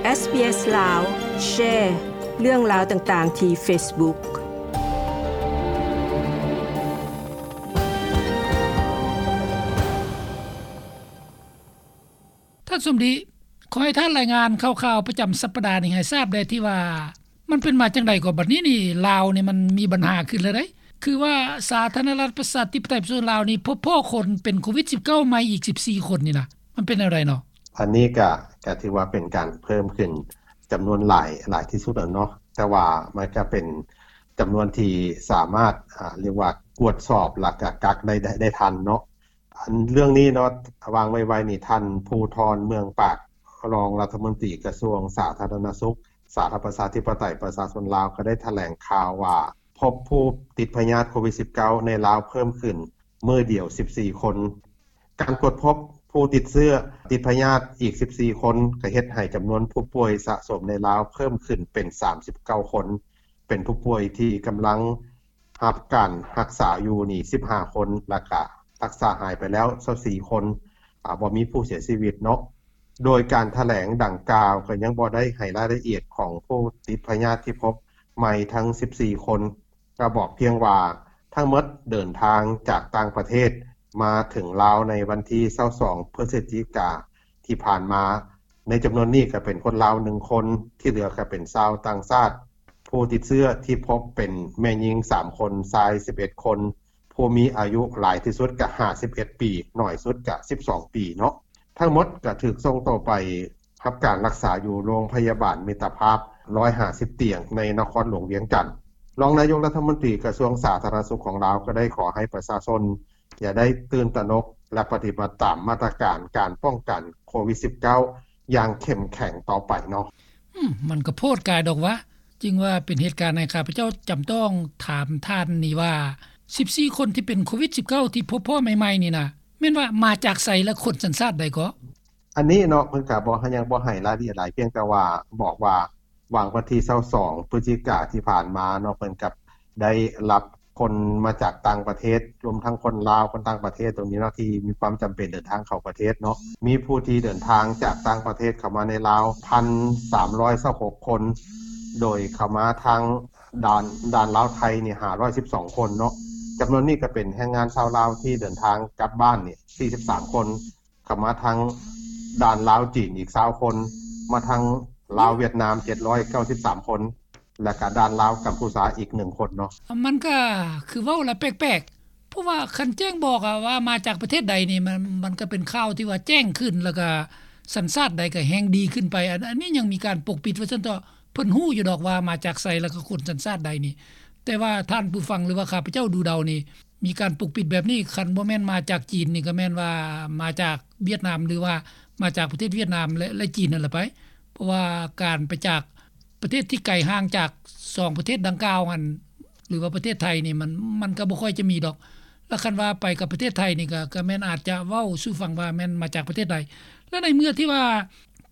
ເອສບີເອສລາວ ແຊເລື່ອງລາວຕ່າງໆທີ່ເຟສບຸກ. ທ່ານສົມດີ, ຂໍໃຫ້ທ່ານລາຍງານຂ່າວໆປະຈຳສັບປະດານີ້ໃຫ້ຊາບແດ່ ທີ່ວ່າມັນເປັນມາຈັ່ງໃດກໍ ບັດນີ້ນີ້ລາວນີ້ມັນມີບັນຫາຂຶ້ນແລ້ວໃດ໋ ຄືວ່າສາທາລະນະລັດປະຊາທິປະໄຕປະຊາຊົນລາວນີ້ ພົບພໍ້ຄົນເປັນໂຄວິດສິບເກົ້າໃໝ່ອີກສິບສີ່ຄົນນີ້ນະ ມັນເປັນແນວໃດເນາະ? ອັນນີ້ກະ ກະຖືວ່າເປັນການເພີ່ມຂຶ້ນຈຳນວນຫຼາຍ ຫຼາຍທີ່ສຸດແລ້ວເນາະ ແຕ່ວ່າມັນກະເປັນຈຳນວນທີ່ສາມາດ ອາ ຮຽກວ່າກວດສອບ ແລ້ວກະກັກໄດ້ ໄດ້ ໄດ້ທັນເນາະ. ອັນເລື່ອງນີ້ເນາະ ຫວ່າງໄວໆນີ້ ທ່ານ ພູທອນ ເມືອງປາກ ຮອງລັດຖະມົນຕີກະຊວງສາທາລະນະສຸກ ສາທາລະນະລັດປະຊາທິປະໄຕປະຊາຊົນລາວ ກໍໄດ້ຖະແຫຼງຂ່າວວ່າ ພົບຜູ້ຕິດພະຍາດໂຄວິດສິບເກົ້າໃນລາວເພີ່ມຂຶ້ນມື້ດຽວສິບສີ່ຄົນ. ການກວດພົບຜູ້ຕິດເຊື້ອ ຕິດພະຍາດອີກສິບສີ່ຄົນ ກໍເຮັດໃຫ້ຈຳນວນຜູ້ປ່ວຍສະສົມໃນລາວເພີ່ມຂຶ້ນເປັນສາມສິບເກົ້າຄົນ, ເປັນຜູ້ປ່ວຍທີ່ກຳລັງ ຮັບການຮັກສາຢູ່ນີ້ສິບຫ້າຄົນ ແລ້ວກະຮັກສາຫາຍໄປແລ້ວຊາວສີ່ຄົນ, ອາ ບໍ່ມີຜູ້ເສຍຊີວິດເນາະ. ໂດຍການຖະແຫຼງດັ່ງກ່າວກໍຍັງບໍ່ໄດ້ໃຫ້ລາຍລະອຽດຂອງຜູ້ຕິດພະຍາດທີ່ພົບໃໝ່ທັງສິບສີ່ຄົນ, ກໍບອກພຽງວ່າທັງໝົດເດີນທາງຈາກຕ່າງປະເທດມາເຖິງລາວໃນວັນທີຊາວສອງ ພຶສຈິກາທີ່ຜ່ານມາ. ໃນຈຳນວນນີ້ກໍເປັນຄົນລາວໜຶ່ງຄົນ, ທີ່ເຫຼືອກໍເປັນຊາວຕ່າງຊາດ. ຜູ້ຕິດເຊື້ອທີ່ພົບເປັນແມ່ຍິງສາມຄົນ, ຊາຍສິບເອັດຄົນ, ຜູ້ມີອາຍຸຫຼາຍທີ່ສຸດກໍຫ້າສິບເອັດປີ, ໜ້ອຍສຸດກໍສິບສອງປີເນາະ. ທັງໝົດກໍຖືກສົ່ງໂຕໄປຮັບການຮັກສາຢູ່ໂຮງພະຍາບານມິດຕະພາບ ຮ້ອຍຫ້າສິບຕຽງ ໃນນະຄອນຫຼວງວຽງຈັນ. ຮອງນາຍົກລັດຖະມົນຕີກະຊວງສາທາລະນະສຸກຂອງລາວກໍໄດ້ຂໍໃຫ້ປະຊາຊົນ ຢ່າໄດ້ຕື່ນຕະໜົກ ແລະ ປະຕິບັດຕາມມາດຕະການການປ້ອງກັນໂຄວິດສິບເກົ້າ ຢ່າງເຂັ້ມແຂງຕໍ່ໄປເນາະ. ອືມ ມັນກໍໂພດກາຍດອກວະ, ຈຶ່ງວ່າເປັນເຫດການໃຫ້ຂ້າພະເຈົ້າຈຳຕ້ອງຖາມທ່ານນີ້ວ່າ ສິບສີ່ຄົນທີ່ເປັນໂຄວິດສິບເກົ້າທີ່ພົບພໍ້ໃໝ່ໆນີ້ນະ ແມ່ນວ່າມາຈາກໃສ ແລະ ຄົນສັນຊາດໃດເກາະ? ອັນນີ້ເນາະ ເພິ່ນກະບໍ່ ຍັງບໍ່ໃຫ້ລາຍລະອຽດຫຼາຍ, ພຽງແຕ່ວ່າບອກວ່າ ຫວ່າງວັນທີຊາວສອງ ພຶສຈິກາທີ່ຜ່ານມາເນາະ ເພິ່ນກະໄດ້ຮັບຄົນມາຈາກຕ່າງປະເທດ ລວມທັງຄົນລາວ ຄົນຕ່າງປະເທດຕົງນີ້ເນາະ ທີ່ມີຄວາມຈຳເປັນເດີນທາງເຂົ້າປະເທດເນາະ. ມີຜູ້ທີ່ເດີນທາງຈາກຕ່າງປະເທດເຂົ້າມາໃນລາວ ພັນສາມຮ້ອຍຊາວຫົກຄົນ, ໂດຍເຂົ້າມາທາງດ່ານ ດ່ານລາວໄທນີ້ ຫ້າຮ້ອຍສິບສອງຄົນເນາະ. ຈຳນວນນີ້ກະເປັນແຮງງານຊາວລາວທີ່ເດີນທາງກັບບ້ານນີ້ ສີ່ສິບສາມຄົນ, ເຂົ້າມາທາງດ່ານລາວຈີນອີກຊາວຄົນ, ມາທາງລາວຫວຽດນາມ ເຈັດຮ້ອຍເກົ້າສິບສາມຄົນ ແລະກະດ່ານລາວກຳພູຊາອີກໜຶ່ງຄົນເນາະ. ມັນກະຄືເວົ້າລະແປກໆ ເພາະວ່າຄັນແຈ້ງບອກອະວ່າມາຈາກປະເທດໃດນີ້ ມັນ ມັນກະເປັນຂ່າວທີ່ວ່າແຈ້ງຂຶ້ນ ແລ້ວກະສັນຊາດໃດກະແຮ່ງດີຂຶ້ນໄປ. ອັນ ອັນນີ້ຍັງມີການປົກປິດວ່າຊັ້ນເຖາະ. ເພິ່ນຮູ້ຢູ່ດອກວ່າມາຈາກໃສ ແລ້ວກໍຄົນສັນຊາດໃດນີ້, ແຕ່ວ່າທ່ານຜູ້ຟັງ ຫຼືວ່າຂ້າພະເຈົ້າດູເດົານີ້ ມີການປົກປິດແບບນີ້, ຄັນບໍ່ແມ່ນມາຈາກຈີນນີ້ ກໍແມ່ນວ່າມາຈາກຫວຽດນາມ ຫຼືວ່າມາຈາກປະເທດຫວຽດນາມ ແລະ ແລະ ຈີນນັ້ນລະໄປ. ເພາະວ່າການໄປຈາກປະເທດທີ່ໄກຫ່າງຈາກສອງປະເທດດັ່ງກ່າວຫັ້ນ ຫຼືວ່າປະເທດໄທນີ້ ມັນ ມັນກໍບໍ່ຄ່ອຍຈະມີດອກ. ແລ້ວຄັນວ່າໄປກັບປະເທດໄທນີ້ ກໍ ກໍແມ່ນອາດຈະເວົ້າສູ່ຟັງວ່າແມ່ນມາຈາກປະເທດໃດ. ແລ້ວໃນເມື່ອທີ່ວ່າ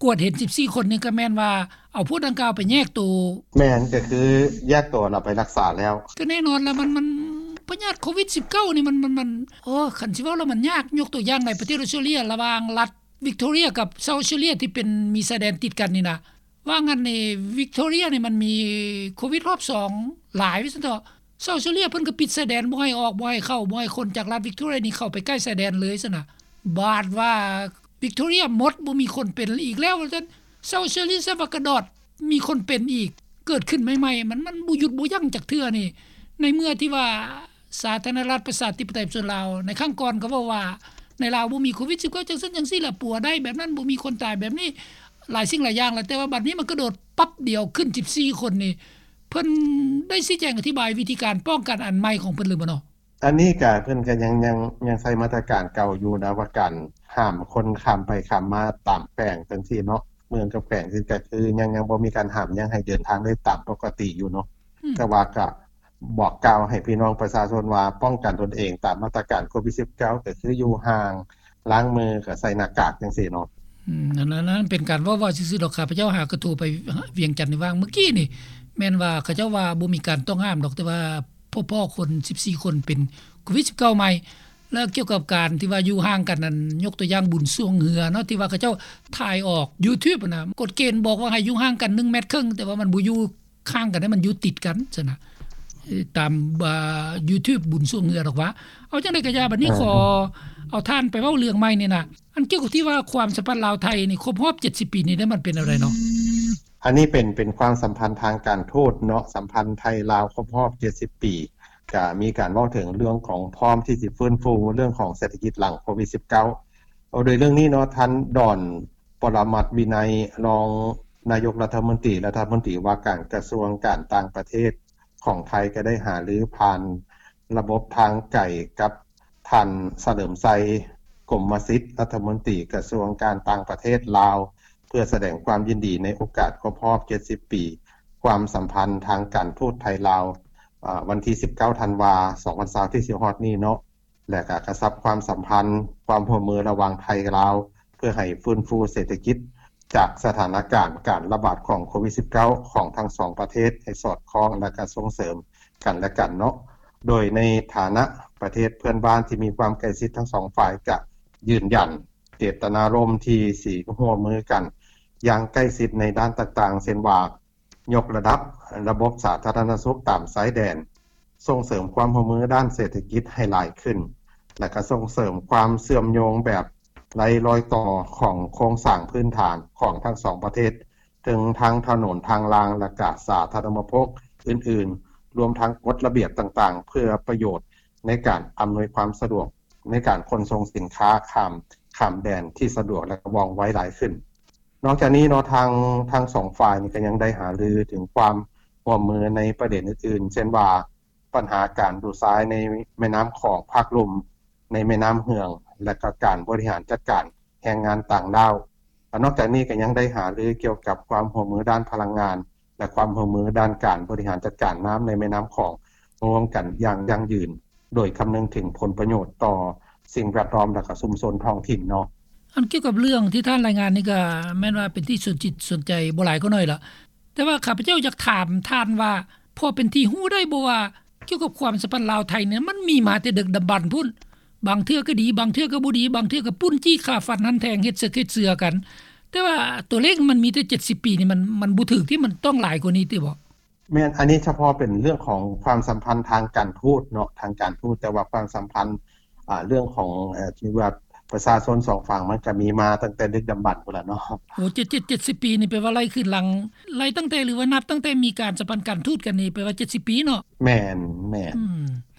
ກວດເຫັນສິບສີ່ຄົນນີ້ ກໍແມ່ນວ່າເອົາພວກດັ່ງກ່າວໄປແຍກໂຕ. ແມ່ນ, ກໍຄືແຍກໂຕແລ້ວໄປຮັກສາແລ້ວ. ກໍແນ່ນອນລະ ມັນ ມັນ ພະຍາດໂຄວິດສິບເກົ້ານີ້ ມັນ ມັນ ມັນ ໂອ້ ຄັນຊິເວົ້າແລ້ວມັນຍາກ. ຍົກຕົວຢ່າງໃນປະເທດອອສເຕຣເລຍ ລະຫວ່າງລັດວິກໂທເຣຍກັບເຊົາອອສເຕຣເລຍ ທີ່ເປັນ ມີຊາຍແດນຕິດກັນນີ້ນະ ວ່າງອັນນີ້ ວິກໂທເຣຍນີ້ມັນມີໂຄວິດຮອບສອງຫຼາຍວ່າຊັ້ນເຖາະ. ເຊົາອອສເຕຣເລຍເພິ່ນກໍປິດຊາຍແດນ ບໍ່ໃຫ້ອອກ ບໍ່ໃຫ້ເຂົ້າ ບໍ່ໃຫ້ຄົນຈາກລັດວິກໂທເຣຍນີ້ເຂົ້າໄປໃກ້ຊາຍແດນເລີຍຊັ້ນນະ. ບາດວ່າວິກໂທເຣຍໝົດ ບໍ່ມີຄົນເປັນອີກແລ້ວວ່າຊັ້ນ, ເຊົາອອສເຕຣເລຍສະຫວັດກະດອດ ມີຄົນເປັນອີກ ເກີດຂຶ້ນໃໝ່ໆ ມັນ ມັນບໍ່ຢຸດບໍ່ຢັ້ງຈັກເທື່ອນີ້. ໃນເມື່ອທີ່ວ່າ ສາທາລະນະລັດປະຊາທິປະໄຕປະຊາຊົນລາວ ໃນຄັ້ງກ່ອນກໍເວົ້າວ່າ ໃນລາວບໍ່ມີໂຄວິດສິບເກົ້າ ຈັ່ງຊັ້ນຈັ່ງຊີ້ລະ ປົວໄດ້ແບບນັ້ນ ບໍ່ມີຄົນຕາຍແບບນີ້ ຫຼາຍສິ່ງຫຼາຍຢ່າງລະ. ແຕ່ວ່າບັດນີ້ມັນກະໂດດປັບດຽວຂຶ້ນສິບສີ່ຄົນນີ້ ເພິ່ນໄດ້ຊີ້ແຈງອະທິບາຍວິທີການປ້ອງກັນອັນໃໝ່ຂອງເພິ່ນຫຼືບໍ່ເນາະ? ອັນນີ້ກະເພິ່ນກະຍັງ ຍັງ ຍັງໃຊ້ມາດຕະການເກົ່າຢູ່ນະ ວ່າການຫ້າມຄົນຂ້າມໄປຂ້າມມາຕາມແຂວງຈັ່ງຊີ້ເນາະ, ເມືອງກັບແຂວງ ກະຄືຍັງ ຍັງບໍ່ມີການຫ້າມ, ຍັງໃຫ້ເດີນທາງໄດ້ຕາມປົກກະຕິຢູ່ເນາະ. ອືມ ແຕ່ວ່າກະ ບອກກ່າວໃຫ້ພີ່ນ້ອງປະຊາຊົນວ່າປ້ອງກັນຕົນເອງຕາມມາດຕະການໂຄວິດສິບເກົ້າ ກໍຄືຢູ່ຫ່າງ, ລ້າງມື, ກໍໃສ່ໜ້າກາກຈັ່ງຊີ້ເນາະ. ອືມ ອັນນັ້ນເປັນການເວົ້າໆຊື່ໆດອກ. ຂ້າພະເຈົ້າຫາກະໂທໄປວຽງຈັນໃນຫວ່າງມື້ກີ້ນີ້ ແມ່ນວ່າເຂົາເຈົ້າວ່າບໍ່ມີການຕ້ອງຫ້າມດອກ, ແຕ່ວ່າພໍ້ໆຄົນສິບສີ່ຄົນເປັນໂຄວິດສິບເກົ້າໃໝ່. ແລ້ວກ່ຽວກັບການທີ່ວ່າຢູ່ຫ່າງກັນນັ້ນ ຍົກຕົວຢ່າງບຸນຊ່ວງເຮືອເນາະ ທີ່ວ່າເຂົາເຈົ້າຖ່າຍອອກ YouTube ຫັ້ນນະ ກົດເກນບອກວ່າໃຫ້ຢູ່ຫ່າງກັນໜຶ່ງແມັດເຄິ່ງ ແຕ່ວ່າມັນບໍ່ຢູ່ ຫ່າງກັນໃຫ້ມັນຢູ່ຕິດກັນຊັ້ນນະ ເອີ ຕາມ YouTube ບຸນຊ່ວງເຮືອດອກວ່າ. ເອົາຈັ່ງໃດກໍຢ່າ ບັດນີ້ຂໍເອົາທ່ານໄປເວົ້າເລື່ອງໃໝ່ນີ້ນະ ອັນກ່ຽວກັບທີ່ວ່າຄວາມສຳພັນລາວໄທນີ້ຄົບຮອບເຈັດສິບປີນີ້ໄດ້ ມັນເປັນແນວໃດເນາະ? ອັນນີ້ເປັນ ເປັນຄວາມສຳພັນທາງການທູດເນາະ ສຳພັນໄທລາວຄົບຮອບເຈັດສິບປີ ກະມີການເວົ້າເຖິງເລື່ອງຂອງພ້ອມທີ່ຊິຟື້ນຟູເລື່ອງຂອງເສດຖະກິດຫຼັງໂຄວິດສິບເກົ້າ. ໂດຍເລື່ອງນີ້ເນາະ ທ່ານ ດອນ ປະລະມັດວິໄນ ຮອງນາຍົກລັດຖະມົນຕີ ລັດຖະມົນຕີວ່າການກະຊວງການຕ່າງປະເທດຂອງໄທ ກໍໄດ້ຫາລືຜ່ານລະບົບທາງໄກກັບທ່ານ ສະເຫຼີມໄຊ ກົມມະສິດ ລັດຖະມົນຕີກະຊວງການຕ່າງປະເທດລາວ ເພື່ອສະແດງຄວາມຍິນດີໃນໂອກາດຄົບຮອບເຈັດສິບປີ ຄວາມສຳພັນທາງການທູດໄທລາວ ອາ ວັນທີສິບເກົ້າ ທັນວາ ສອງພັນຊາວ ທີ່ຊິຮອດນີ້ເນາະ. ແລະ ກະກະຊັບຄວາມສຳພັນ ຄວາມຮ່ວມມືລະຫວ່າງໄທ-ລາວ ເພື່ອໃຫ້ຟື້ນຟູເສດຖະກິດ ຈາກສະຖານະການການລະບາດຂອງໂຄວິດສິບເກົ້າ ຂອງທັງສອງປະເທດໃຫ້ສອດຄ່ອງ ແລະ ກະສົ່ງເສີມກັນແລະກັນເນາະ. ໂດຍໃນຖານະປະເທດເພື່ອນບ້ານທີ່ມີຄວາມໃກ້ຊິດ ທັງສອງຝ່າຍກະຢືນຢັນເຈດຕະນາລົມທີ່ຊິຮ່ວມມືກັນຢ່າງໃກ້ຊິດໃນດ້ານຕ່າງໆ ເຊັ່ນວ່າ ຍົກລະດັບລະບົບສາທາລະນະສຸກຕາມຊາຍແດນ, ສົ່ງເສີມຄວາມຮ່ວມມືດ້ານເສດຖະກິດໃຫ້ຫຼາຍຂຶ້ນ ແລະ ກະສົ່ງເສີມຄວາມເຊື່ອມໂຍງແບບໄຮ້ລອຍຕໍ່ຂອງໂຄງສ້າງພື້ນຖານຂອງທັງສອງປະເທດ, ເຖິງທາງຖະໜົນ, ທາງລາງ ແລະ ກະສາທາລະນະອຸປະໂພກອື່ນໆ, ລວມທັງກົດລະບຽບຕ່າງໆ ເພື່ອປະໂຫຍດໃນການອຳນວຍຄວາມສະດວກໃນການຂົນສົ່ງສິນຄ້າຂ້າມ, ຂ້າມແດນທີ່ສະດວກ ແລະ ກະວ່ອງໄວຫຼາຍຂຶ້ນ. ນອກຈາກນີ້ເນາະ ທາງ ທັງສອງຝ່າຍນີ້ກໍຍັງໄດ້ຫາລືເຖິງຄວາມຮ່ວມມືໃນປະເດັນອື່ນໆ ເຊັ່ນວ່າ ບັນຫາການດູດຊາຍໃນແມ່ນ້ຳຂອງພາກລຸ່ມ, ໃນແມ່ນ້ຳເຫືອງ ແລະ ກໍການບໍລິຫານຈັດການແຮງງານຕ່າງດ້າວ. ນອກຈາກນີ້ກໍຍັງໄດ້ຫາລືກ່ຽວກັບຄວາມຮ່ວມມືດ້ານພະລັງງານ ແລະ ຄວາມຮ່ວມມືດ້ານການບໍລິຫານຈັດການນ້ຳໃນແມ່ນ້ຳຂອງ ຮ່ວມກັນຢ່າງຢັ້ງຢືນ ໂດຍຄຳນຶງເຖິງຜົນປະໂຫຍດຕໍ່ສິ່ງແວດລ້ອມ ແລະ ກະຊຸມຊົນທ້ອງຖິ່ນເນາະ. ອັນກ່ຽວກັບເລື່ອງທີ່ທ່ານລາຍງານນີ້ ກະແມ່ນວ່າເປັນທີ່ສົນຈິດສົນໃຈບໍ່ຫຼາຍກໍໜ້ອຍລະ, ແຕ່ວ່າຂ້າພະເຈົ້າຢາກຖາມທ່ານວ່າ ພໍເປັນທີ່ຮູ້ໄດ້ບໍ່ວ່າ ກ່ຽວກັບຄວາມສຳພັນລາວ-ໄທນີ້ ມັນມີມາແຕ່ດຶກດຳບັນພຸ້ນ, ບາງເທື່ອກໍດີ ບາງເທື່ອກໍບໍ່ດີ, ບາງເທື່ອກໍປຸ້ນຈີ້ຂ້າຟັນຫັນແທງ ເຮັດເສິກເຮັດເສືອກັນ, ແຕ່ວ່າຕົວເລກມັນມີແຕ່ເຈັດສິບປີນີ້ ມັນ ມັນບໍ່ຖືກຕິ, ມັນຕ້ອງຫຼາຍກວ່ານີ້ຕິບໍ? ແມ່ນ, ອັນນີ້ສະເພາະເປັນເລື່ອງຂອງຄວາມສຳພັນທາງການທູດເນາະ, ທາງການທູດ, ແຕ່ວ່າຄວາມສຳພັນ ອ່າ ເລື່ອງຂອງ ເອີ ທີ່ວ່າປະຊາຊົນສອງຝັ່ງ ມັນກະມີມາຕັ້ງແຕ່ດຶກດຳບັນພຸ້ນລະເນາະ. ໂອ້ ເຈັດ ເຈັດ ເຈັດສິບປີນີ້ ແປວ່າໄລ່ຄືນຫຼັງ, ໄລ່ຕັ້ງແຕ່ ຫຼືວ່ານັບຕັ້ງແຕ່ມີການສຳພັນການທູດກັນນີ້ ແປວ່າເຈັດສິບປີເນາະ. ແມ່ນ, ແມ່ນ. ອືມ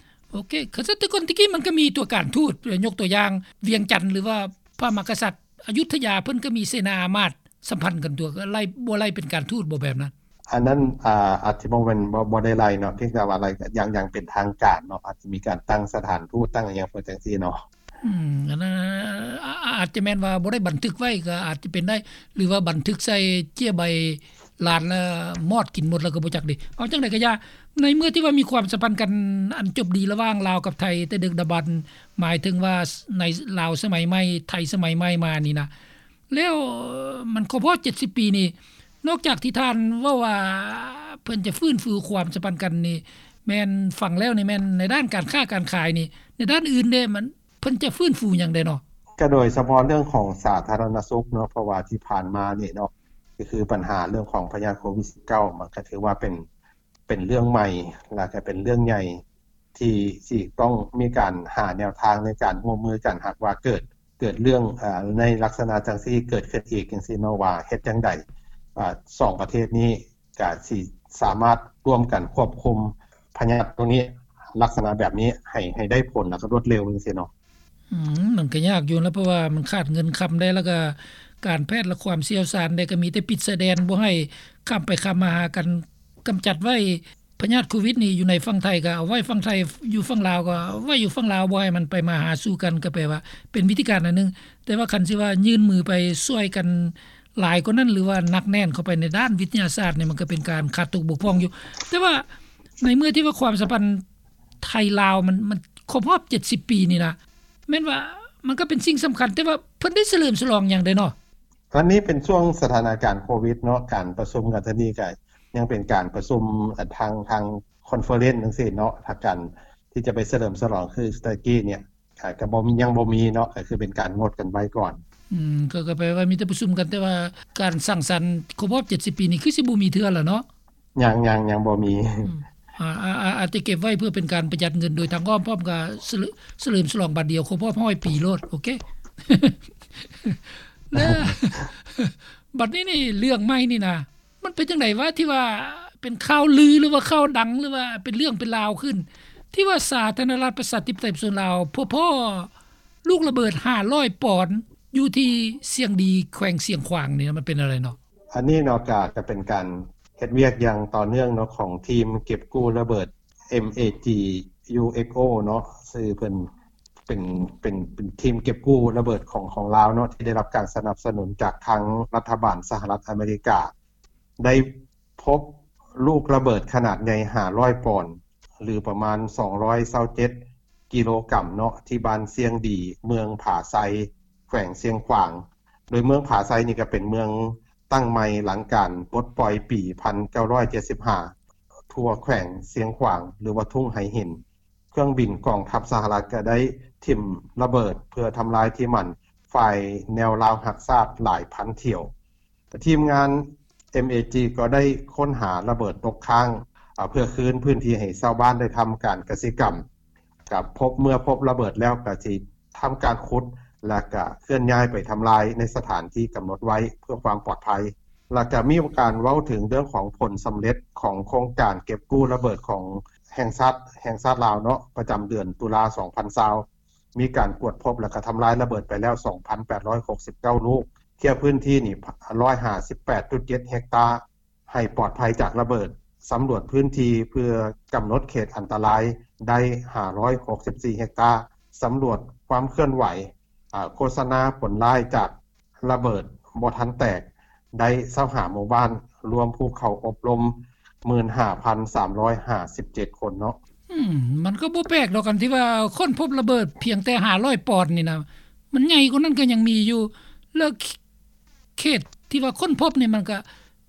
ໂອເຄ. ຄັນຊັ້ນແຕ່ກ່ອນແຕ່ກີ້ມັນກະມີຕົວການທູດ, ຍົກຕົວຢ່າງ ວຽງຈັນ ຫຼືວ່າພະມະຫາກະສັດ ອະຍຸດທະຍາ ເພິ່ນກໍມີເສນາອາມາດສຳພັນກັນຕົວະ, ກໍໄລ່ ບໍ່ໄລ່ເປັນການທູດບໍ ແບບນັ້ນ? ອັນນັ້ນ ອາ ອາດຈະບໍ່ແມ່ນ ບໍ່ ບໍ່ໄດ້ໄລ່ເນາະ, ພຽງແຕ່ວ່າໄລ່ຢ່າງ ຢ່າງເປັນທາງການເນາະ, ອາດຈະມີການຕັ້ງສະຖານທູດ ຕັ້ງຫຍັງເພິ່ນຈັ່ງຊີ້ເນາະ. ອືມ ອັນນັ້ນ ອາ ອາດຈະແມ່ນວ່າບໍ່ໄດ້ບັນທຶກໄວ້ ກໍອາດຈະເປັນໄດ້, ຫຼືວ່າບັນທຶກໃສ່ເຈ້ຍໃບ ລ້ານລະມອດກິນໝົດແລ້ວກໍບໍ່ຈັກເດ. ເອົາຈັ່ງໃດກໍຢ່າ, ໃນເມື່ອທີ່ວ່າມີຄວາມສຳພັນກັນອັນຈົບດີລະຫວ່າງລາວກັບໄທແຕ່ດຶກດຳບັນ, ໝາຍເຖິງວ່າໃນລາວສະໄໝໃໝ່, ໄທສະໄໝໃໝ່ມານີ້ນະ, ແລ້ວມັນຄົບຮອບເຈັດສິບປີນີ້, ນອກຈາກທີ່ທ່ານເວົ້າວ່າເພິ່ນຈະຟື້ນຟູຄວາມສຳພັນກັນນີ້ ແມ່ນຟັງແລ້ວນີ້ແມ່ນໃນດ້ານການຄ້າການຂາຍນີ້, ໃນດ້ານອື່ນເດ ມັນ ເພິ່ນຈະຟື້ນຟູຫຍັງແດ່ເນາະ? ກໍໂດຍສະເພາະເລື່ອງຂອງສາທາລະນະສຸກເນາະ, ເພາະວ່າທີ່ຜ່ານມານີ້ເນາະ ກໍຄືບັນຫາເລື່ອງຂອງພະຍາດໂຄວິດສິບເກົ້າ ມັນກໍຖືວ່າເປັນ ເປັນເລື່ອງໃໝ່ ແລ້ວກໍເປັນເລື່ອງໃຫຍ່ ທີ່ຊິຕ້ອງມີການຫາແນວທາງໃນການຮ່ວມມືກັນ ຫາກວ່າເກີດ ເກີດເລື່ອງ ອາ ໃນລັກສະນະຈັ່ງຊີ້ເກີດຂຶ້ນອີກຈັ່ງຊີ້ເນາະ ວ່າເຮັດຈັ່ງໃດ ອາ ສອງປະເທດນີ້ ກະຊິສາມາດຮ່ວມກັນຄວບຄຸມພະຍາດໂຕນີ້ ລັກສະນະແບບນີ້ໃຫ້ ໃຫ້ໄດ້ຜົນ ແລ້ວກໍລວດເລັວຈັ່ງຊີ້ເນາະ. ອືມ ມັນກໍຍາກຢູ່ນະ ເພາະວ່າມັນຂາດເງິນຄຳໄດ້ ແລ້ວກໍການແພດ ແລະ ຄວາມຊ່ຽວຊານໄດ້ ກໍມີແຕ່ປິດຊາຍແດນ ບໍ່ໃຫ້ຂ້າມໄປຂ້າມມາຫາກັນ, ກຳຈັດໄວ້ພະຍາດໂຄວິດນີ້ຢູ່ໃນຝັ່ງໄທກໍເອົາໄວ້ຝັ່ງໄທ, ຢູ່ຝັ່ງລາວກໍເອົາໄວ້ຢູ່ຝັ່ງລາວ, ບໍ່ໃຫ້ມັນໄປມາຫາສູ່ກັນ ກໍແປວ່າເປັນວິທີການອັນໜຶ່ງ. ແຕ່ວ່າຄັນຊິວ່າຍື່ນມືໄປຊ່ວຍກັນ ຫຼາຍກວ່ານັ້ນ ຫຼືວ່າໜັກແໜ້ນເຂົ້າໄປໃນດ້ານວິທະຍາສາດນີ້ ມັນກໍເປັນການຂາດຕົກບົກຜ່ອງຢູ່. ແຕ່ວ່າໃນເມື່ອທີ່ວ່າຄວາມສຳພັນໄທລາວມັນ ມັນຄົບຮອບເຈັດສິບປີນີ້ນະ ແມ່ນວ່າມັນກໍເປັນສິ່ງສຳຄັນ, ແຕ່ວ່າເພິ່ນໄດ້ສະເຫຼີມສະຫຼອງຫຍັງໄດ໋ເນາະ? ອັນນີ້ເປັນຊ່ວງສະຖານະການໂຄວິດເນາະ, ການປະຊຸມກັນເທື່ອນີ້ກໍຍັງເປັນການປະຊຸມ ອາ ທາງ ທາງຄອນເຟີເຣັນຈັ່ງຊີ້ເນາະ, ທາງການທີ່ຈະໄປສະເຫຼີມສະຫຼອງຄືຕະກີ້ນີ້ ກໍ ກໍບໍ່ມີ ຍັງບໍ່ມີເນາະ ກໍຄືເປັນການງົດກັນໄວ້ກ່ອນ. ອືມ ກໍ ກໍແປວ່າມີແຕ່ປະຊຸມກັນ ແຕ່ວ່າການສັງສັນຄົບຮອບເຈັດສິບປີນີ້ ຄືຊິບໍ່ມີເທື່ອລະເນາະ? ຍັງ ຍັງ ຍັງບໍ່ມີ. ອືມ ອາ ອາ ອາ ອາດຈະເກັບໄວ້ເພື່ອເປັນການປະຢັດເງິນໂດຍທາງອ້ອມ ພ້ອມກັບສະເຫຼີມ ສະເຫຼີມສະຫຼອງບາດດຽວຄົບຮອບຮ້ອຍປີໂລດ. ໂອເຄ ແລ້ວ ບັດນີ້ນີ້ ເລື່ອງໃໝ່ນີ້ນະ ມັນເປັນຈັ່ງໃດວະ ທີ່ວ່າເປັນຂ່າວລື ຫຼືວ່າຂ່າວດັງ ຫຼືວ່າເປັນເລື່ອງເປັນລາວຂຶ້ນ ທີ່ວ່າສາທາລະນະລັດປະຊາທິປະໄຕປະຊາຊົນລາວ ພົບພໍ້ລູກລະເບີດຫ້າຮ້ອຍປອນ ຢູ່ທີ່ຊຽງດີ ແຂວງຊຽງຂວາງນີ້ ມັນເປັນແນວໃດເນາະ? ອັນນີ້ເນາະ ກະ ກະເປັນການເຮັດວຽກຢ່າງຕໍ່ເນື່ອງເນາະ ຂອງທີມເກັບກູ້ລະເບີດ MAG UXO ເນາະ ຊື່ເພິ່ນເປັນ ເປັນ ເປັນທີມເກັບກູ້ລະເບີດຂອງ ຂອງລາວເນາະ ທີ່ໄດ້ຮັບການສະໜັບສະໜູນຈາກທາງລັດຖະບານສະຫະລັດອາເມລິກາ ໄດ້ພົບລູກລະເບີດຂະໜາດໃຫຍ່ຫ້າຮ້ອຍປອນ ຫຼື ປະມານສອງຮ້ອຍຊາວເຈັດກິໂລກຣາມເນາະ ທີ່ບ້ານຊຽງດີ ເມືອງຜາໄຊ ແຂວງຊຽງຂວາງ. ໂດຍເມືອງຜາໄຊນີ້ກໍເປັນເມືອງຕັ້ງໃໝ່ຫຼັງການປົດປ່ອຍປີພັນເກົ້າຮ້ອຍເຈັດສິບຫ້າ ທົ່ວແຂວງຊຽງຂວາງ ຫຼືວ່າທົ່ງໄຫຫີນ. ເຄື່ອງບິນກອງທັບສະຫະລັດກໍໄດ້ຖິ້ມລະເບີດເພື່ອທຳລາຍທີ່ໝັ້ນຝ່າຍແນວລາວຮັກຊາດຫຼາຍພັນຖ້ຽວ. ທີມງານ MAG ກໍໄດ້ຄົ້ນຫາລະເບີດຕົກຄ້າງ ເພື່ອຄືນພື້ນທີ່ໃຫ້ຊາວບ້ານໄດ້ທຳການກະສິກຳ. ກໍພົບ ເມື່ອພົບລະເບີດແລ້ວກໍຊິທຳການຂຸດ ແລະ ກະເຄື່ອນຍ້າຍໄປທຳລາຍໃນສະຖານທີ່ກຳນົດໄວ້ເພື່ອຄວາມປອດໄພ. ແລະ ກະມີການເວົ້າເຖິງເລື່ອງຂອງຜົນສຳເລັດຂອງໂຄງການເກັບກູ້ລະເບີດຂອງແຫ່ງຊາດ ແຫ່ງຊາດລາວເນາະ ປະຈຳເດືອນຕຸລາ ສອງພັນຊາວ ມີການກວດພົບ ແລະ ກະທຳລາຍລະເບີດໄປແລ້ວ ສອງພັນແປດຮ້ອຍຫົກສິບເກົ້າລູກ, ເຂດພື້ນທີ່ນີ້ ຮ້ອຍຫ້າສິບແປດຈຸດເຈັດເຮັກຕາ ໃຫ້ປອດໄພຈາກລະເບີດ, ສຳຫຼວດພື້ນທີ່ເພື່ອກຳນົດເຂດອັນຕະລາຍໄດ້ ຫ້າຮ້ອຍຫົກສິບສີ່ເຮັກຕາ, ສຳຫຼວດຄວາມເຄື່ອນໄຫວ ອາ ໂຄສະນາຜົນຮ້າຍຈາກລະເບີດບໍ່ທັນແຕກໄດ້ ຊາວຫ້າໝູ່ບ້ານ, ລວມຜູ້ເຂົ້າອົບຮົມ ໝື່ນຫ້າພັນສາມຮ້ອຍຫ້າສິບເຈັດຄົນເນາະ. ອືມ ມັນກໍບໍ່ແປກດອກ ອັນທີ່ວ່າຄົ້ນພົບລະເບີດພຽງແຕ່ຫ້າຮ້ອຍປອນນີ້ນະ, ມັນໃຫຍ່ກວ່ານັ້ນກໍຍັງມີຢູ່. ແລ້ວ ເຂດທີ່ວ່າຄົ້ນພົບນີ້ ມັນກະ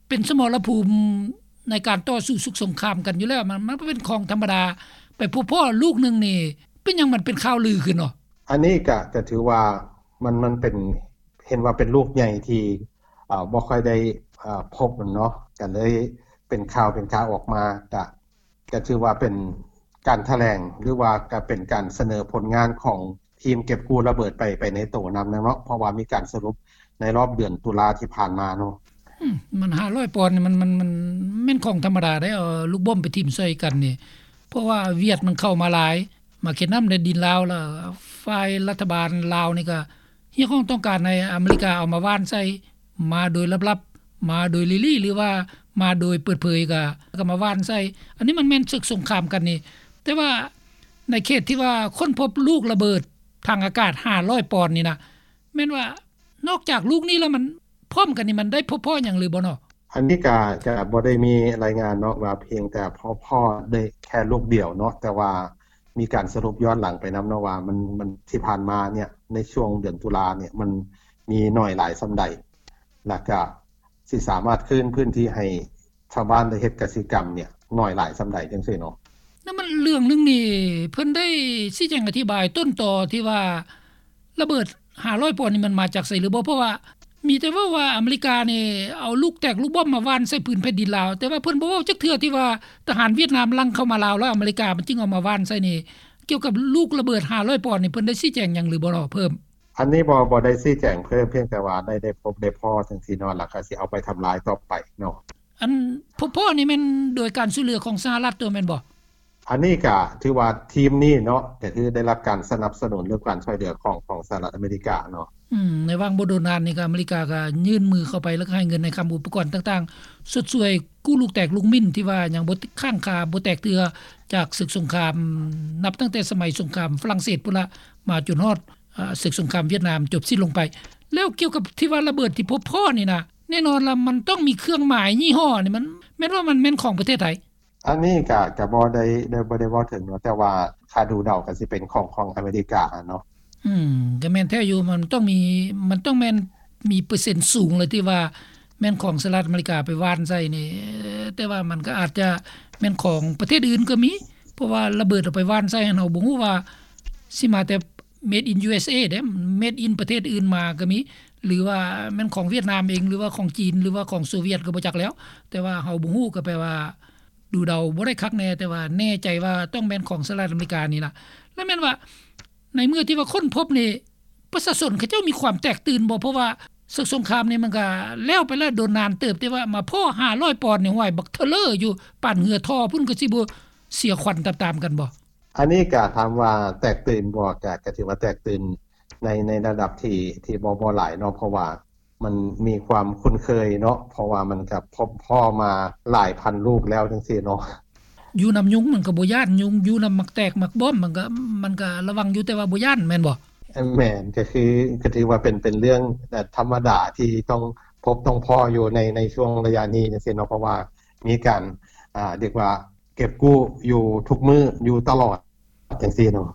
ເປັນສະໝໍລະພູມໃນການຕໍ່ສູ້ສົງຄາມກັນຢູ່ແລ້ວ, ມັນ ມັນເປັນຂອງທຳມະດາ. ໄປພົບພໍ້ລູກໜຶ່ງນີ້ ເປັນຫຍັງມັນເປັນຂ່າວລືຂຶ້ນເນາະ? ອັນນີ້ກະ ກະຖືວ່າມັນ ມັນເປັນ ເຫັນວ່າເປັນລູກໃຫຍ່ທີ່ ເອີ ບໍ່ຄ່ອຍໄດ້ ເອີ ພົບເນາະ, ກະເລີຍເປັນຂ່າວ ເປັນຂ່າວອອກມາ. ກະ ກະຖືວ່າເປັນການຖະແຫຼງ ຫຼືວ່າກະເປັນການສະເໜີຜົນງານຂອງທີມເກັບກູ້ລະເບີດໄປ ໄປໃນໂຕນຳເນາະ, ເພາະວ່າມີການສະຫຼຸບໃນລອບເດືອນຕຸລາທີ່ຜ່ານມາເນາະ. ອືມ ມັນຫ້າຮ້ອຍປອນນີ້ ມັນ ມັນ ມັນແມ່ນຂອງທຳມະດາເດ້ ເອົາລູກບອມໄປຖິ້ມໃສ່ກັນນີ້, ເພາະວ່າຫວຽດມັນເຂົ້າມາຫຼາຍ, ມາເຂດນ້ຳແດນດິນລາວ ແລ້ວຝ່າຍລັດຖະບານລາວນີ້ກະ ຮຽກຮ້ອງຕ້ອງການໃຫ້ອາເມລິກາເອົາມາຫວ່ານໃສ່ ມາໂດຍລັບໆ ມາໂດຍລີ້ໆ ຫຼືວ່າມາໂດຍເປີດເຜີຍ ກະ ກະມາຫວ່ານໃສ່. ອັນນີ້ມັນແມ່ນເສິກສົງຄາມກັນນີ້, ແຕ່ວ່າໃນເຂດທີ່ວ່າຄົ້ນພົບລູກລະເບີດທາງອາກາດຫ້າຮ້ອຍປອນນີ້ນະ, ແມ່ນວ່ານອກຈາກລູກນີ້ແລ້ວ ມັນພ້ອມກັນນີ້ ມັນໄດ້ພົບພໍ້ຫຍັງຫຼືບໍ່ເນາະ? ອັນນີ້ກະ ກະບໍ່ໄດ້ມີລາຍງານເນາະ ວ່າພຽງແຕ່ພໍ້ ພໍ້ໄດ້ແຄ່ລູກດຽວເນາະ, ແຕ່ວ່າມີການສະຫຼຸບຍ້ອນຫຼັງໄປນຳເນາະ ວ່າມັນ ມັນທີ່ຜ່ານມາເນີ້ຍ ໃນຊ່ວງເດືອນຕຸລາເນີ້ຍ ມັນມີໜ້ອຍຫຼາຍສ່ຳໃດ ແລ້ວກະຊິສາມາດຄືນພື້ນທີ່ໃຫ້ຊາວບ້ານໄດ້ເຮັດກະສິກຳເນີ້ຍ ໜ້ອຍຫຼາຍສ່ຳໃດ ຈັ່ງຊີ້ເນາະ. ນັ້ນມັນເລື່ອງໜຶ່ງນີ້ ເພິ່ນໄດ້ຊີ້ແຈງອະທິບາຍຕົ້ນຕໍທີ່ວ່າ ລະເບີດຫ້າຮ້ອຍປອນນີ້ ມັນມາຈາກໃສຫຼືບໍ່? ເພາະວ່າມີແຕ່ເວົ້າວ່າອາເມລິການີ້ເອົາລູກແຕກລູກບອມມາຫວ່ານໃສ່ພື້ນແຜ່ນດິນລາວ, ແຕ່ວ່າເພິ່ນບໍ່ເວົ້າຈັກເທື່ອທີ່ວ່າທະຫານຫວຽດນາມລັກເຂົ້າມາລາວ ແລ້ວອາເມລິກາມັນຈຶ່ງເອົາມາຫວ່ານໃສ່ນີ້. ກ່ຽວກັບລູກລະເບີດຫ້າຮ້ອຍປອນນີ້ ເພິ່ນໄດ້ຊີ້ແຈງຫຍັງຫຼືບໍ່ເນາະ ເພີ່ມ? ອັນນີ້ບໍ່ ບໍ່ໄດ້ຊີ້ແຈງເພີ່ມ, ພຽງແຕ່ວ່າໄດ້ ໄດ້ພົບໄດ້ພໍ້ຈັ່ງຊີ້ເນາະ, ແລ້ວກໍຊິເອົາໄປທຳລາຍຕໍ່ໄປເນາະ. ອັນ ພໍ້ນີ້ແມ່ນໂດຍການຊ່ວຍເຫຼືອຂອງສະຫະລັດຕົວະແມ່ນບໍ່? ອັນນີ້ກະຖືວ່າທີມນີ້ເນາະ ກະຄືໄດ້ຮັບການສະໜັບສະໜູນ ຫຼື ການຊ່ວຍເຫຼືອຂອງ ຂອງສະຫະລັດອາເມລິກາເນາະ. ອືມ ໃນຫວ່າງບໍ່ດົນນານນີ້ກະ ອາເມລິກາກະຍື່ນມືເຂົ້າໄປ ແລ້ວກະໃຫ້ເງິນໃຫ້ຄຳ ອຸປະກອນຕ່າງໆ ຊົດຊ່ວຍກູ້ລູກແຕກລູກມິ້ນ ທີ່ວ່າຍັງບໍ່ຄ້າງຄາ ບໍ່ແຕກເທື່ອ ຈາກເສິກສົງຄາມ ນັບຕັ້ງແຕ່ສະໄໝສົງຄາມຝຣັ່ງເສດພຸ້ນລະ ມາຈົນຮອດ ອາ ເສິກສົງຄາມຫວຽດນາມຈົບສິ້ນລົງໄປ. ແລ້ວກ່ຽວກັບທີ່ວ່າລະເບີດທີ່ພົບພໍ້ນີ້ນະ ແນ່ນອນລະ ມັນຕ້ອງມີເຄື່ອງໝາຍຍີ່ຫໍ້ນີ້ ມັນ ແມ່ນວ່າມັນແມ່ນຂອງປະເທດໃດ? ອັນນີ້ກະ ກະບໍ່ໄດ້ ໄດ້ ບໍ່ໄດ້ເວົ້າເຖິງເນາະ, ແຕ່ວ່າຖ້າດູເດົາກະຊິເປັນຂອງ ຂອງອາເມລິກາເນາະ. ອືມ ກະແມ່ນແທ້ຢູ່, ມັນຕ້ອງມີ ມັນຕ້ອງແມ່ນມີເປີເຊັນສູງເລີຍ ທີ່ວ່າແມ່ນຂອງສະຫະລັດອາເມລິກາໄປຫວ່ານໃສ່ນີ້, ແຕ່ວ່າມັນກະອາດຈະແມ່ນຂອງປະເທດອື່ນກະມີ, ເພາະວ່າລະເບີດເອົາໄປຫວ່ານໃສ່ຫັ້ນ ເຮົາບໍ່ຮູ້ວ່າຊິມາແຕ່ Made in ຢູເອສເອ ເດ້ Made in ປະເທດອື່ນມາກໍມີ ຫຼືວ່າແມ່ນຂອງຫວຽດນາມເອງ ຫຼືວ່າຂອງຈີນ ຫຼືວ່າຂອງໂຊວຽດກໍບໍ່ຈັກແລ້ວ ແຕ່ວ່າເຮົາບໍ່ຮູ້ ກໍແປວ່າດູເດົາບໍ່ໄດ້ຄັກແນ່ ແຕ່ວ່າແນ່ໃຈວ່າຕ້ອງແມ່ນຂອງສະຫະລັດອາເມລິການີ້ລະ. ແລ້ວແມ່ນວ່າໃນເມື່ອທີ່ວ່າຄົ້ນພົບນີ້ ປະຊາຊົນເຂົາເຈົ້າມີຄວາມແຕກຕື່ນບໍ່? ເພາະວ່າເຊິ່ງສົງຄາມນີ້ມັນກໍແລ້ວໄປແລ້ວດົນນານເຕີບ ແຕ່ວ່າມາພໍ້ຫ້າຮ້ອຍປອນນີ້ ຫ້ວຍ ບັກເທີເລີຢູ່ ປານເຮືອທໍ່ພຸ້ນ ກໍຊິບໍ່ເສຍຂວັນຕາມໆກັນບໍ່? ອັນນີ້ກໍຖາມວ່າແຕກຕື່ນບໍ່ ກໍ ກໍຖືວ່າແຕກຕື່ນໃນ ໃນລະດັບທີ່ ທີ່ບໍ່ ບໍ່ຫຼາຍເນາະ ເພາະວ່າມັນມີຄວາມຄຸ້ນເຄີຍເນາະ ເພາະວ່າມັນກໍພົບພໍ້ມາຫຼາຍພັນລູກແລ້ວຈັ່ງຊີ້ເນາະ. ຢູ່ນຳຍຸງມັນກໍບໍ່ຢ້ານຍຸງ ຢູ່ນຳໝາກແຕກໝາກບອມມັນກໍ ມັນກໍລະວັງຢູ່ ແຕ່ວ່າບໍ່ຢ້ານແມ່ນບໍ່? ແມ່ນ ກໍຄື ກໍຖືວ່າເປັນ ເປັນເລື່ອງ ເອີ່ ທຳມະດາທີ່ຕ້ອງພົບຕ້ອງພໍ້ຢູ່ໃນ ໃນຊ່ວງໄລຍະນີ້ຈັ່ງຊີ້ເນາະ ເພາະວ່າມີການ ອ່າ ຮຽກວ່າເກັບກູ້ຢູ່ທຸກມື້ຢູ່ຕະຫຼອດຈັ່ງຊີ້ເນາະ.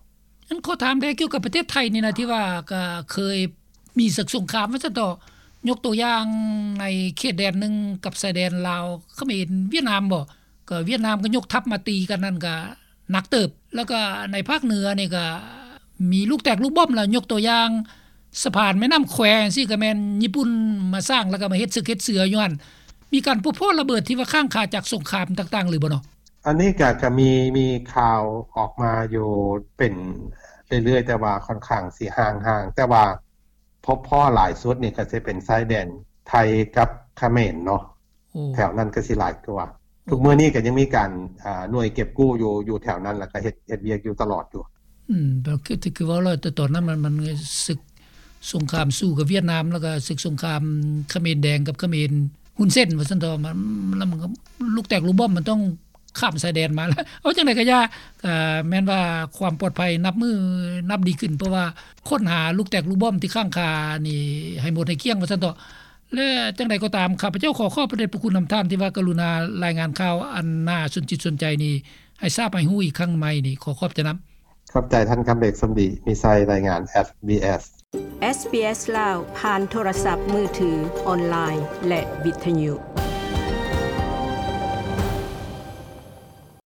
ອັນຂໍຖາມແດ່ກ່ຽວກັບປະເທດໄທນີ້ນະ ທີ່ວ່າກໍເຄີຍມີເຊິ່ງສົງຄາມວ່າຊັ້ນເຖາະ ຍົກຕົວຢ່າງໃນເຂດແດນໜຶ່ງກັບຊາຍແດນລາວ ຂະເໝນ ຫວຽດນາມບໍ ກໍຫວຽດນາມກໍຍົກທັບມາຕີກັນນັ້ນກໍໜັກເຕີບ ແລ້ວກໍໃນພາກເໜືອນີ້ກໍມີລູກແຕກລູກບອມ ແລ້ວຍົກຕົວຢ່າງສະພານແມ່ນ້ຳແຄຈັ່ງຊີ້ ກໍແມ່ນຍີ່ປຸ່ນມາສ້າງ ແລ້ວກໍມາເຮັດເສິກເຮັດເສືອຢູ່ຫັ້ນ ມີການພົບພໍ້ລະເບີດທີ່ວ່າຄ້າງຄາຈາກສົງຄາມຕ່າງໆ ຫຼືບໍ່ເນາະ? ອັນນີ້ກໍ ກໍມີ ມີຂ່າວອອກມາຢູ່ເປັນເລື້ອຍໆ ແຕ່ວ່າຂ້ອນຂ້າງຊິຫ່າງໆ ແຕ່ວ່າພົບພໍ້ຫຼາຍສຸດນີ້ກໍຊິເປັນຊາຍແດນໄທກັບຂະເໝນເນາະ. ໂອ້ ແຖວນັ້ນກໍຊິຫຼາຍກວ່າ. ໂອ້ ທຸກມື້ນີ້ກໍຍັງມີການ ອ່າ ໜ່ວຍເກັບກູ້ຢູ່ ຢູ່ແຖວນັ້ນ ແລ້ວກໍເຮັດ ເຮັດວຽກຢູ່ຕະຫຼອດຢູ່. ອືມ ກໍຄື ຄືເວົ້າແລ້ວ ແຕ່ຕອນນັ້ນມັນ ມັນເຊິ່ງສົງຄາມສູ້ກັບຫວຽດນາມ ແລ້ວກໍເຊິ່ງສົງຄາມຂະເໝນແດງກັບຂະເໝນຮຸນເຊັນວ່າຊັ້ນເຖາະ ມັນ ແລ້ວມັນກໍລູກແຕກລູກບອມມັນຕ້ອງຂ້າມຊາຍແດນມາແລ້ວ. ເອົາ ຈັ່ງໃດກໍຢ່າ ກໍແມ່ນວ່າຄວາມປອດໄພນັບມື້ນັບດີຂຶ້ນ ເພາະວ່າຄົ້ນຫາລູກແຕກລູກບອມທີ່ຄ້າງຄານີ້ໃຫ້ໝົດໃຫ້ກ້ຽງວ່າຊັ້ນເຖາະ. ແລະ ຈັ່ງໃດກໍຕາມ ຂ້າພະເຈົ້າຂໍຂອບພະເດດພະຄຸນນຳທ່ານທີ່ວ່າກະລຸນາລາຍງານຂ່າວອັນໜ້າສົນຈິດສົນໃຈນີ້ ໃຫ້ຊາບໃຫ້ຮູ້ອີກຄັ້ງໃໝ່ນີ້ ຂໍຂອບໃຈນຳ. ຂອບໃຈທ່ານຄຳເບກ ສົມດີມີໄຊ ລາຍງານ SBS SBS ລາວ ຜ່ານໂທລະສັບມືຖື, ອອນລາຍ ແລະ ວິທະຍຸ.